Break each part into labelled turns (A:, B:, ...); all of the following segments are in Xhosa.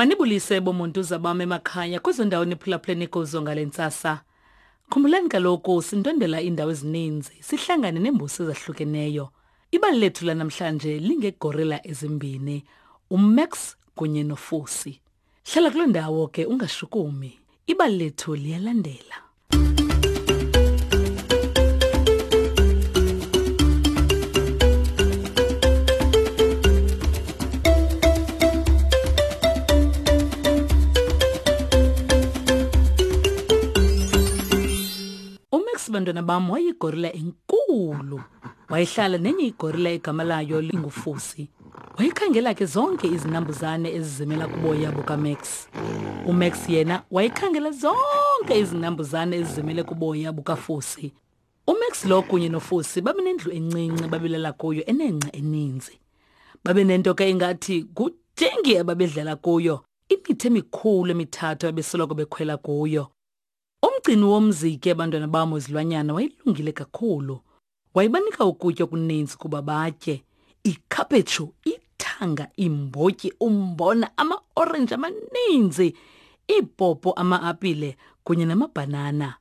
A: Manibulise bomuntu bam emakhaya kwezo ndawo niphulaphuleni kuzo ngale ntsasa. Khumbulani kaloku sindwendela iindawo ezininzi, sihlangane neembusi ezahlukeneyo. Ibali lethu lanamhlanje lingegorila ezimbini, uMax kunye noFusi. Hlala kuloo ndawo ke ungashukumi. Ibali lethu liyalandela. UMax bantwana bam wayigorila enkulu. Wayehlala nenye igorila egama layo linguFusi. Wayekhangela ke zonke izinambuzane ezizimela kuboya bukaMax. UMax yena wayekhangela zonke izinambuzane ezizimele kuboya bukaFusi. UMax lo kunye noFusi babenendlu encinci babelala kuyo enengca eninzi. Babenento ke ingathi ngujengi ababedlala kuyo, imithi emikhulu emithathu abesoloko bekhwela kuyo. Umgcini womzi ke bantwana bam wezilwanyana wayelungile kakhulu. Wayebanika ukutya okuninzi kuba batye. Ikhaphetshu, ithanga, iimbotyi, umbona, amaorenji amaninzi, iipopo, ama-apile kunye namabhanana.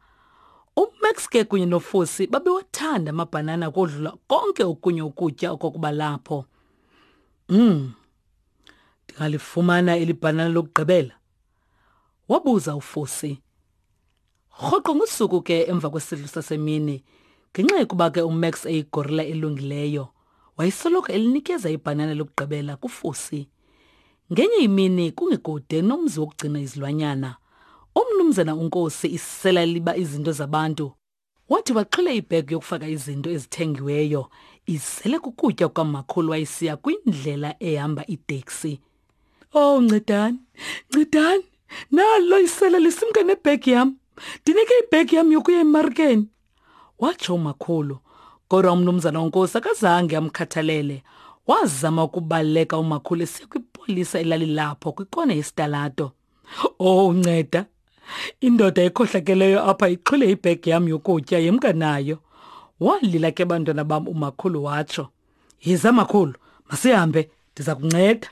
A: UMax ke kunye noFusi babewathanda amabhanana kodlula konke okunye ukutya okwakuba lapho. Ndingalifumana eli bhanana lokugqibela? Wabuza uFusi. Rhoqo ngosuku ke emva kwesidlo sasemini, ngenxa yokuba ke uMax eyigorila elungileyo, wayesoloko elinikeza ibhanana lokugqibela kuFusi. Ngenye imini kungekude nomzi wokugcina izilwanyana, umnumzana uNkosi isela liba izinto zabantu Wathi waxhila ibhegi yokufaka izinto ezithengiweyo izele kukutya kukamakhulu wayesiya kwindlela ehamba iteksi. Oh ncedani, ncedani, nalo isela lisimka nebhegi yam. Ndinike ibhegi yam yokuya emarikeni. Watsho umakhulu. Kodwa umnumzana uNkosi akazange amkhathalele. Wazama ukubaleka umakhulu esiya kwipolisa elalilapho kwikona yesitalato. Oh nceda. Indoda ekhohlakeleyo apha ixhwile ibhegi yam yokutya yemka nayo. Walila ke bantwana bam umakhulu watsho. Yiza makhulu, masihambe ndiza kunceda.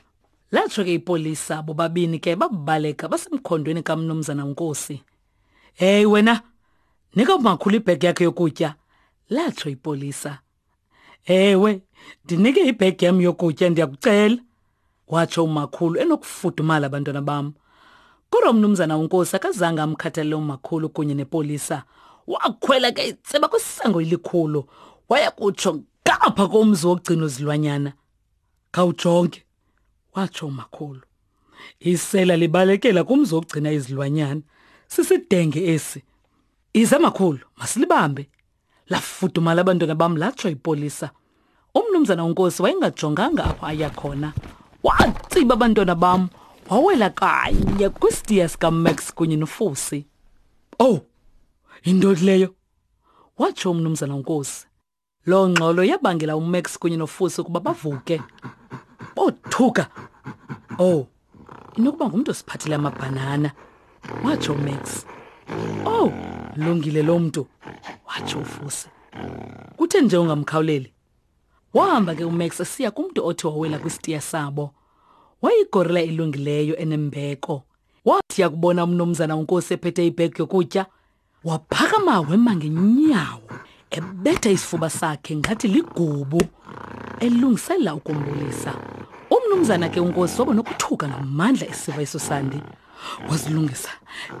A: Latsho ke ipolisa bobabini ke babaleka basemkhondweni kamnumzana uNkosi. Hey wena, nika umakhulu ibhegi yakhe yokutya, latsho ipolisa. Ewe, ndinike ibhegi yam yokutya ndiyakucela, watsho umakhulu enokufudumala abantwana bam. Kodwa umnumzana uNkosi akazange amkhathalele umakhulu kunye nepolisa. Wakhwela ke itseba kwisango elikhulu, waya kutsho ngapha komzi wokugcina izilwanyana. Khawujonge, watsho umakhulu. Isela libalekela kumzi wokugcina izilwanyana. Sisidenge esi. Iza makhulu, masilibambe. Lafudumala abantwana bam latsho ipolisa. Umnumzana uNkosi wayengajonganga apho aya khona. Watsiba abantwana bam wawela kanye kwisitiya sikaMax kunye noFusi. Oh, yintoni leyo? Watsho umnumzana uNkosi. Loo ngxolo yabangela uMax kunye noFusi ukuba bavuke. Bothuka. Oh, inokuba ngumntu osiphathele amabhanana watsho umax owu oh, lungile lo mntu watsho ufusi kuthe nje ungamkhawuleli wahamba ke umax esiya kumntu othi wawela kwisitiya sabo wayigorila elungileyo enembeko wathi yakubona umnumzana unkosi ephethe ibhegi yokutya Waphakama wema ngenyawo ebetha isifuba sakhe ngathi ligubu elungisela ukumbulisa. Umnumzana ke uNkosi waba nokuthuka ngamandla esiva eso sandi. Wazilungisa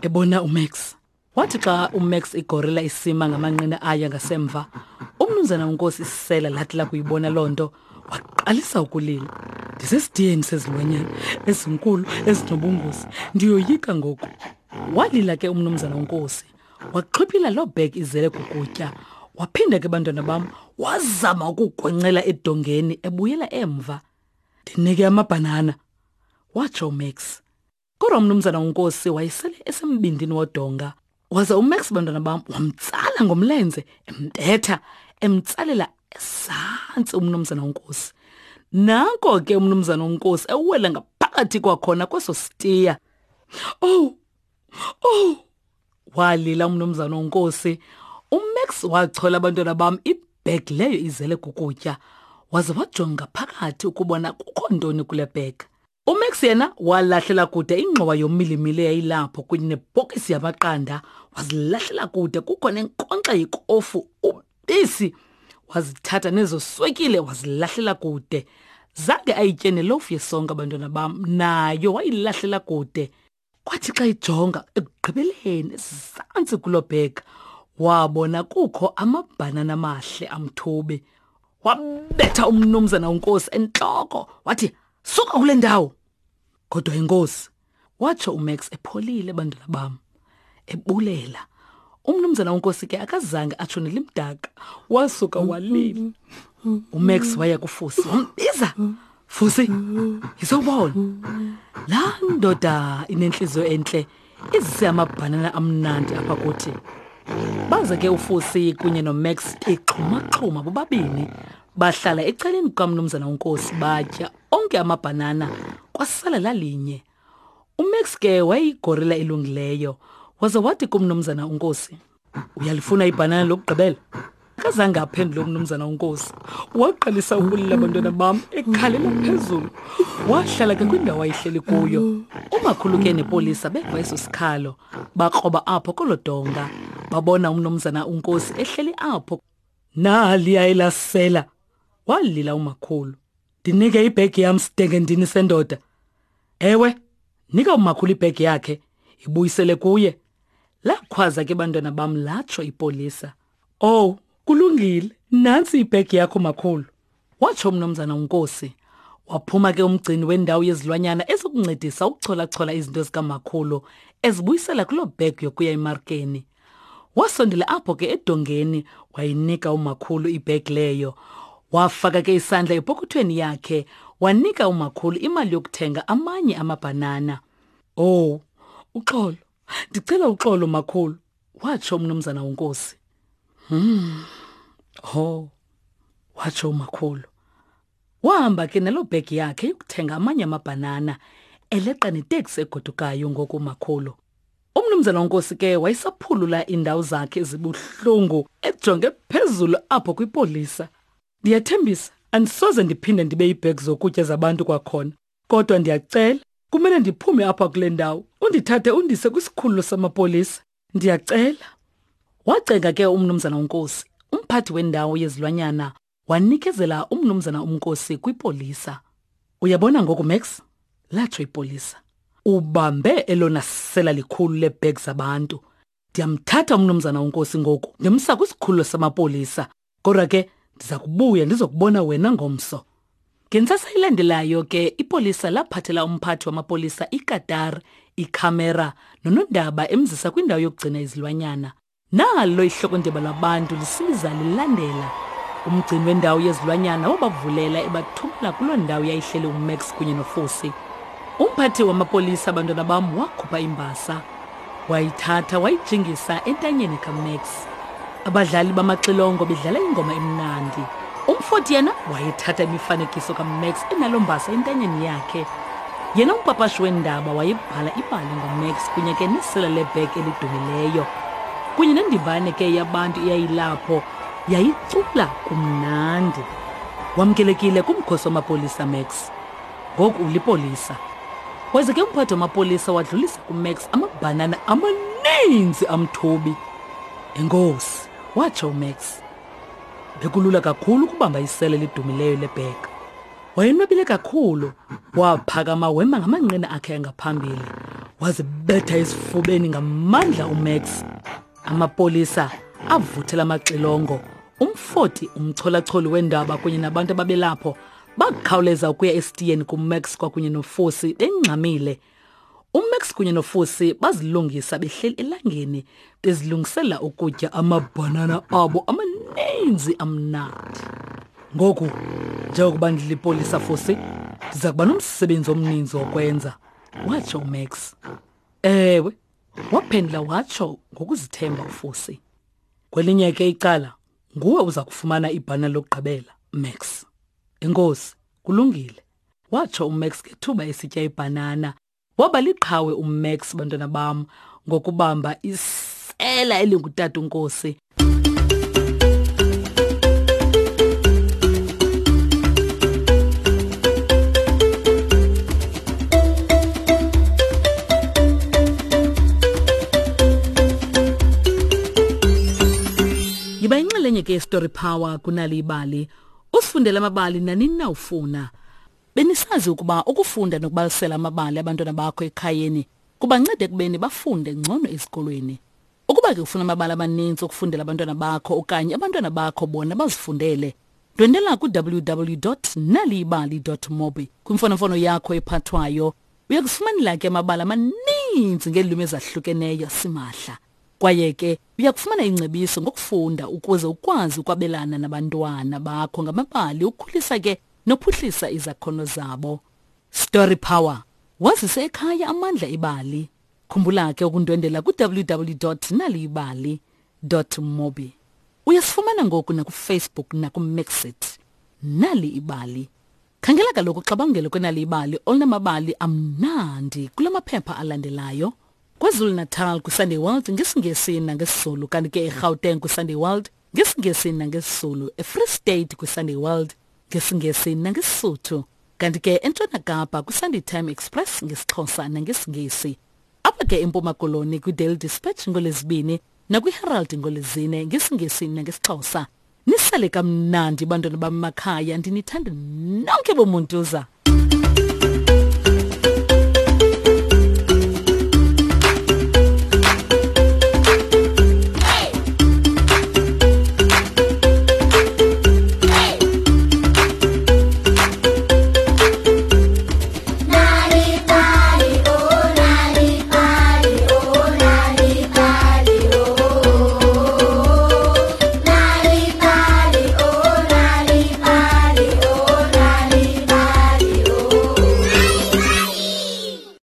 A: ebona uMax. Wathi xa uMax igorila isima ngamanqina ayo ngasemva, umnumzana uNkosi isela lathi lakuyibona loo nto waqalisa ukulila. Ndisesidiyeni sezilwanyana ezinkulu ezinobungozi, ndiyoyika ngoku. Walila ke umnumzana uNkosi, waxhiphila loo bhegi izele kukutya. Waphinda ke bantwana bam, wazama ukugwencela edongeni ebuyela emva. Ndinike amabhanana, watsho uMax. Kodwa umnumzana uNkosi wayesele esembindini wodonga. Waze uMax bantwana bam wamtsala ngomlenze embetha emtsalela esantsi umnumzana uNkosi. Nanko ke umnumzana uNkosi ewela ngaphakathi kwakhona kweso sitiya. Oh! Oh! Walila umnumzana uNkosi. UMax wachola abantwana bam ibag leyo izele kukutya. Waze wajonga phakathi ukubona kukho ntoni kule bag. UMax yena walahlela kude ingxowa yomilimili eyayilapho kunye nebhokisi yamaqanda, wazilahlela kude kukho nenkonkxa yekofu, ubisi, wazithatha nezo swekile wazilahlela kude. Zange ayitye nelofu yesonka bantwana bam, nayo wayilahlela kude. Kwathi xa ijonga ekugqibeleni ezantsi kuloo bhega, wabona kukho amabhanana amahle amthubi. Wabetha umnumzana uNkosi entloko wathi, suka kule ndawo. Kodwa inkosi, watsho uMax epholile bantwana bam, ebulela. Umnumzana uNkosi ke akazange atsho nelimdaka, wasuka walila. UMax waya kuFusi wambiza, Fusi, yizobona. Laa ndoda inentliziyo entle izise amabhanana amnandi apha kuthi. Baze ke uFusi kunye noMax exhumaxhuma bobabini bahlala ecaleni kukamnumzana uNkosi batya onke amabhanana kwasala lalinye. UMax ke wayeyigorila elungileyo waze wathi kumnumzana uNkosi, uyalifuna ibhanana lokugqibela? Akazange aphendule umnumzana uNkosi. Waqalisa ukulila abantwana bam ekhalela phezulu. Wahlala ke kwindawo ayihleli kuyo. Umakhulu ke nepolisa beva eso sikhalo, bakroba apho kolo donga. Babona umnumzana uNkosi ehleli apho. Naliya elasela, walila umakhulu. Ndinike ibhegi yam sidenge ndini sendoda. Ewe, nika umakhulu ibhegi yakhe, ibuyisele kuye. Lakhwaza ke bantwana bam latsho ipolisa. Oh, kulungile, nantsi ibhegi yakho makhulu. Watsho umnumzana uNkosi. Waphuma ke umgcini wendawo yezilwanyana ezokuncedisa ukucholachola izinto zikamakhulu ezibuyisela kuloo bhegi yokuya emarkeni. Wasondela apho ke edongeni wayinika umakhulu ibhegi leyo. Wafaka ke isandla epokothweni yakhe wanika umakhulu imali yokuthenga amanye amabhanana. Oh, uxolo. Ndicela uxolo makhulu, watsho umnumzana uNkosi. Ho, watsho umakhulu. Wahamba ke naloo bhegi yakhe yokuthenga amanye amabhanana, eleqa neteksi egodukayo ngoku umakhulu. Umnumzana uNkosi ke wayesaphulula iindawo zakhe ezibuhlungu ejonge phezulu apho kwipolisa. Ndiyathembisa, andisoze ndiphinde ndibe iibhegi zokutya zabantu kwakhona. Kodwa ndiyacela, kumele ndiphume apha kule ndawo, undithathe undise kwisikhululo samapolisa. Ndiyacela. Wacenga ke umnumzana uNkosi, umphathi wendawo yezilwanyana, wanikezela umnumzana uNkosi kwipolisa. Uyabona ngoku, Max? Latsho ipolisa. Ubambe elona sela likhulu leebhegi zabantu. Ndiyamthatha umnumzana uNkosi ngoku, ndimsa kwisikhululo samapolisa. Kodwa ke ndiza kubuya ndizokubona wena ngomso. Ngentsasa ilandelayo ke ipolisa laphathela umphathi wamapolisa ikatar, ikhamera nonondaba emzisa kwindawo yokugcina izilwanyana. Nalo ihlokondeba labantu lisiza lilandela. Umgcini wendawo yezilwanyana wabavulela ebathumela kuloo ndawo yayihleli uMax kunye noFusi. Umphathi wamapolisa abantwana bam wakhupha imbasa. Wayithatha wayijingisa entanyeni kaMax. Abadlali bamaxilongo bedlala ingoma emnandi. Umfoti yena wayethatha imifanekiso kaMax enalo mbasa entanyeni yakhe. Yena umpapashi weendaba wayebhala ibali ngoMax kunye ke nesela lebhek elidumileyo. Kunye nendimbane ke yabantu eyayilapho yayicula kumnandi. Wamkelekile kumkhosi wamapolisa Max. Ngoku ulipolisa. Waze ke umphathi wamapolisa wadlulisa kuMax amabhanana amaninzi amthubi. Enkosi, watsho uMax. Bekulula kakhulu ukubamba isele elidumileyo lebheka. Wayenwabile kakhulu, waphakama wema ngamanqina akhe angaphambili. Wazibetha esifubeni ngamandla uMax. Amapolisa avuthela amaxilongo. Umfoti, umcholacholi wendaba kunye nabantu ababelapho bakhawuleza ukuya esitiyeni kuMax kwakunye noFosi bengxamile. UMax kunye noFusi bazilungisa behleli elangeni bezilungisela ukutya amabhanana abo amaninzi amnandi. Ngoku njengokuba ndilipolisa Fusi, ndiza kuba nomsebenzi omninzi wokwenza, watsho uMax. Ewe, waphendula watsho ngokuzithemba uFusi. Kwelinye ke icala, nguwe uza kufumana ibhanana lokugqibela, Max. Enkosi, kulungile. Watsho uMax ngethuba esitya ibhanana. Waba liqhawe uMax, bantwana bam, ngokubamba isela elingutata uNkosi. ke Story Power kunali ibali. Usifundela amabali nanini na ufuna. Benisazi ukuba ukufunda nokubalisela amabali abantwana bakho ekhayeni kubanceda ekubeni bafunde ngcono ezikolweni. Ukuba ke ufuna amabali amaninzi okufundela abantwana bakho okanye abantwana bakho bona bazifundele, ndwendela ku-www.naliyibali.mobi kwimfonomfono yakho ephathwayo. Uya kufumanela ke amabali amaninzi ngeelwimi ezahlukeneyo simahla. Kwaye ke uya kufumana ingcebiso ngokufunda ukuze ukwazi ukwabelana nabantwana bakho ngamabali ukhulisa ke nophuhlisa izakhono zabo. Story Power. Wazise ekhaya amandla ebali. Khumbula ke ukundwendela ku-www.naliyibali.mobi. Uyasifumana ngoku nakuFacebook nakuMixit. Nali ibali. Khangela kaloku uxabangelo kwenali ibali olunamabali amnandi kula maphepha alandelayo. KwaZulu-Natal kwiSunday World ngesiNgesi nangesiZulu kanti ke eGauteng kwiSunday World ngesiNgesi nangesiZulu, eFree State kwiSunday World ngesiNgesi nangeSisuthu kanti ke eNtshona Kapa kwiSunday Time Express ngesiXhosa nangesiNgesi. Apha ke eMpuma Koloni kwiDaily Dispatch ngoLwezibini nakwiHerald ngoLwezine ngesiNgesi nangesiXhosa. Nisale kamnandi bantwana bam makhaya ndinithanda nonke bomuntuza.